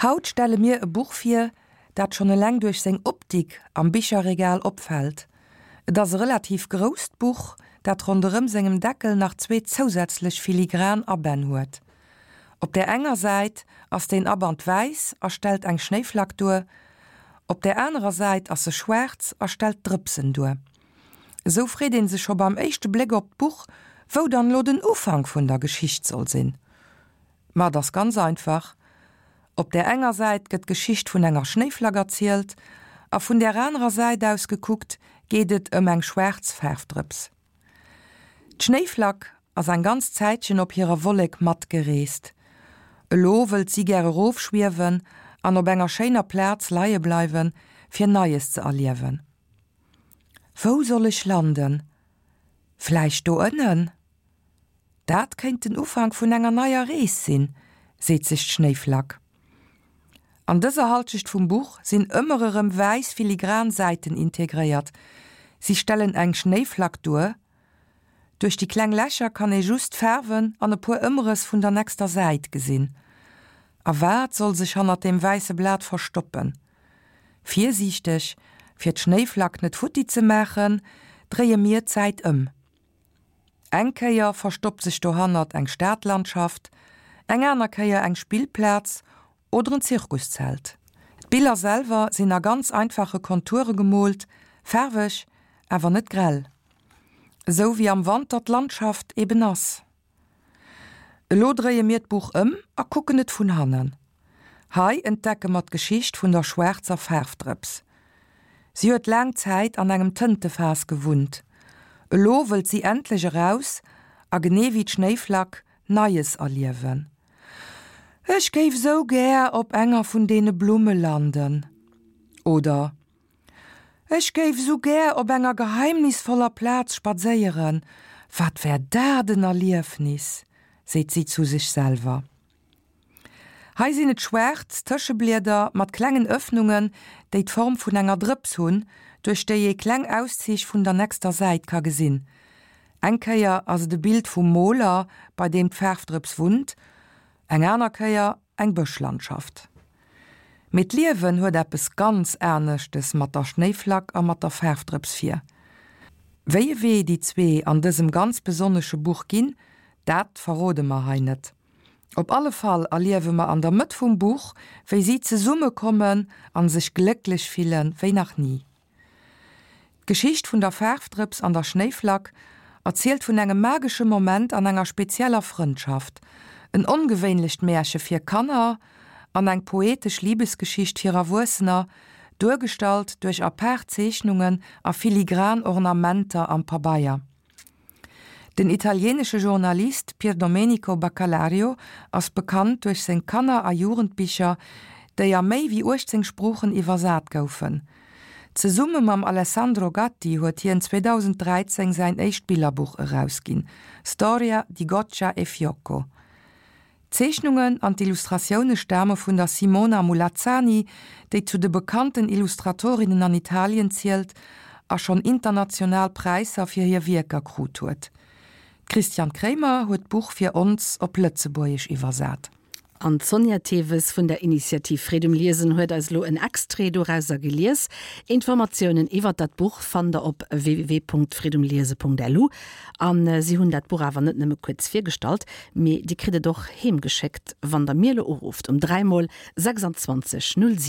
Haut stelle mir e Buch vir, dat schonn eleng duerch seng Optik am Bicherregal opfält. Et ass e relativ grousst Buch, dat ronderëm sengem Deckel nach zwee zousätzlech filigran Abänn huet. Op där enger Säit ass deen Aband wäiss a stellt eng Schnéiflack duer, op där anerer Säit ass e schwaarz a stellt Drëpsen duer. Esou freet een sech scho beim éischte Bléck op d'Buch, wou dann elo den Ufank vun der Geschicht soll sinn. Ma et ass ganz einfach, Op där enger Säit gëtt d'Geschicht vun enger Schnéiflack erzielt a vun där anerer Säit aus gekuckt geet et ëm eng schwaarz Faarfdrëps. D'Schnéiflack ass eng ganz Zäitchen op hirer Wollek matgereest. Elo wëllt si gär erofschwiewen an op enger schéiner Plaz leie bleiwen, fir Neies ze erliewen. Wou soll ech landen? Vläicht do ënnen? Dat kéint den Ufank vun enger neier Rees sinn, seet sech d'Schnéiflack. An dëser Halschecht vum Buch sinn ëmmer erëm wäiss filigran Säiten integréiert. Si stellen eng Schnéiflack duer. Duerch déi kleng Lächer kann ee just d'Faarwen an e puer Ëmrëss vun der nächster Säit gesinn. A wat soll sech hannert deem wäisse Blat verstoppen? Virsiichteg, fir d'Schnéiflack net futti ze maachen, dréie mir d'Säit ëm. Eng Kéier verstoppt sech dohannert eng Stadlandschaft, eng aner Kéier eng Spillplaz oder en Zirkuszelt. D'Biller selwer sinn a ganz einfache Konture gemoolt, faarweg, awer net grell. Esou wéi am Wanter d'Landschaft eben ass. Elo dréie mir d'Buch ëm a kucken et vun hannen. Hei entdecke mer d'Geschicht vun der schwaarzer Faarfdrëps. Si huet laang Zäit an engem Tëntefaass gewunnt. Elo wëllt si endlech eraus a genee wéi d'Schnéiflack Neies erliewen. Ech géif sou gär op enger vun deene Blumme landen. Oder Ech géif esou gär op enger geheimnisvoller Plaz spadséieren, wat wär dat en Erliefnis, seet si zu sech selwer. Hei sinn et schwaarz Tëscheblieder mat klengen Ëffnungen, déi d'Form vun enger Drëps hunn, duerch déi ee kleng Auszich vun der nächster Säit ka gesinn. Eng Kéier ass et e Bild vum Moler, bei deem d'Faarfdrëps wunnt, eng aner Kéier eng Bëschlandschaft. Mee d'Liewen huet eppes ganz aneschtes mat der Schnéiflack a mat der Faarfdrëps vir. Wéi e Wee déi zwee an dësem ganz besonnesche Buch ginn, dat verrode mer hei net. Op alle Fall erliewe mer an der Mëtt vum Buch, wéi si zesumme kommen an sech glécklech fille wéi nach ni. D'Geschicht vun der Faarfdrëps an der Schnéiflack erzielt vun engem magesche Moment an enger spezieller Frëndschaft, en ongewéinlecht Märche fir Kanner an eng poetesch Libesgeschicht fir Erwuessener, duergestallt duerch apaart Zeechnungen a filigran Ornamenter am Pabeier. Den italieenesche Journalist Pierdomenico Baccalario ass bekannt duerch seng Kanner a Jugendbicher, déi a méi wéi 18 Sproochen iwwersat goufen. Zesumme mam Alessandro Gatti huet hien 2013 säin éischt Billerbuch erausginn, Storia di Goccia e Fiocco. D'Zeechnungen an d'Illustratioune stame vun der Simona Mulazzani, déi zu de bekannten Illustratorinnen an Italien zielt a schonn international Präisser fir hir Wierker krut huet. D'Christiane Kremer huet d'Buch fir ons op Lëtzebuergesch iwwersat. An d'Sonja Theves vun der Initiativ Freed um Liesen huet eis elo en Extrait dorauser gelies. Informatiounen iwwert dat Buch fannt der op www.freedumliese.lu. A si hunn dat Buch awer net nëmme kuerz virgestallt, mee Dir kritt et och heem geschéckt, wann der mir elo urufft um 3 mol 26 07.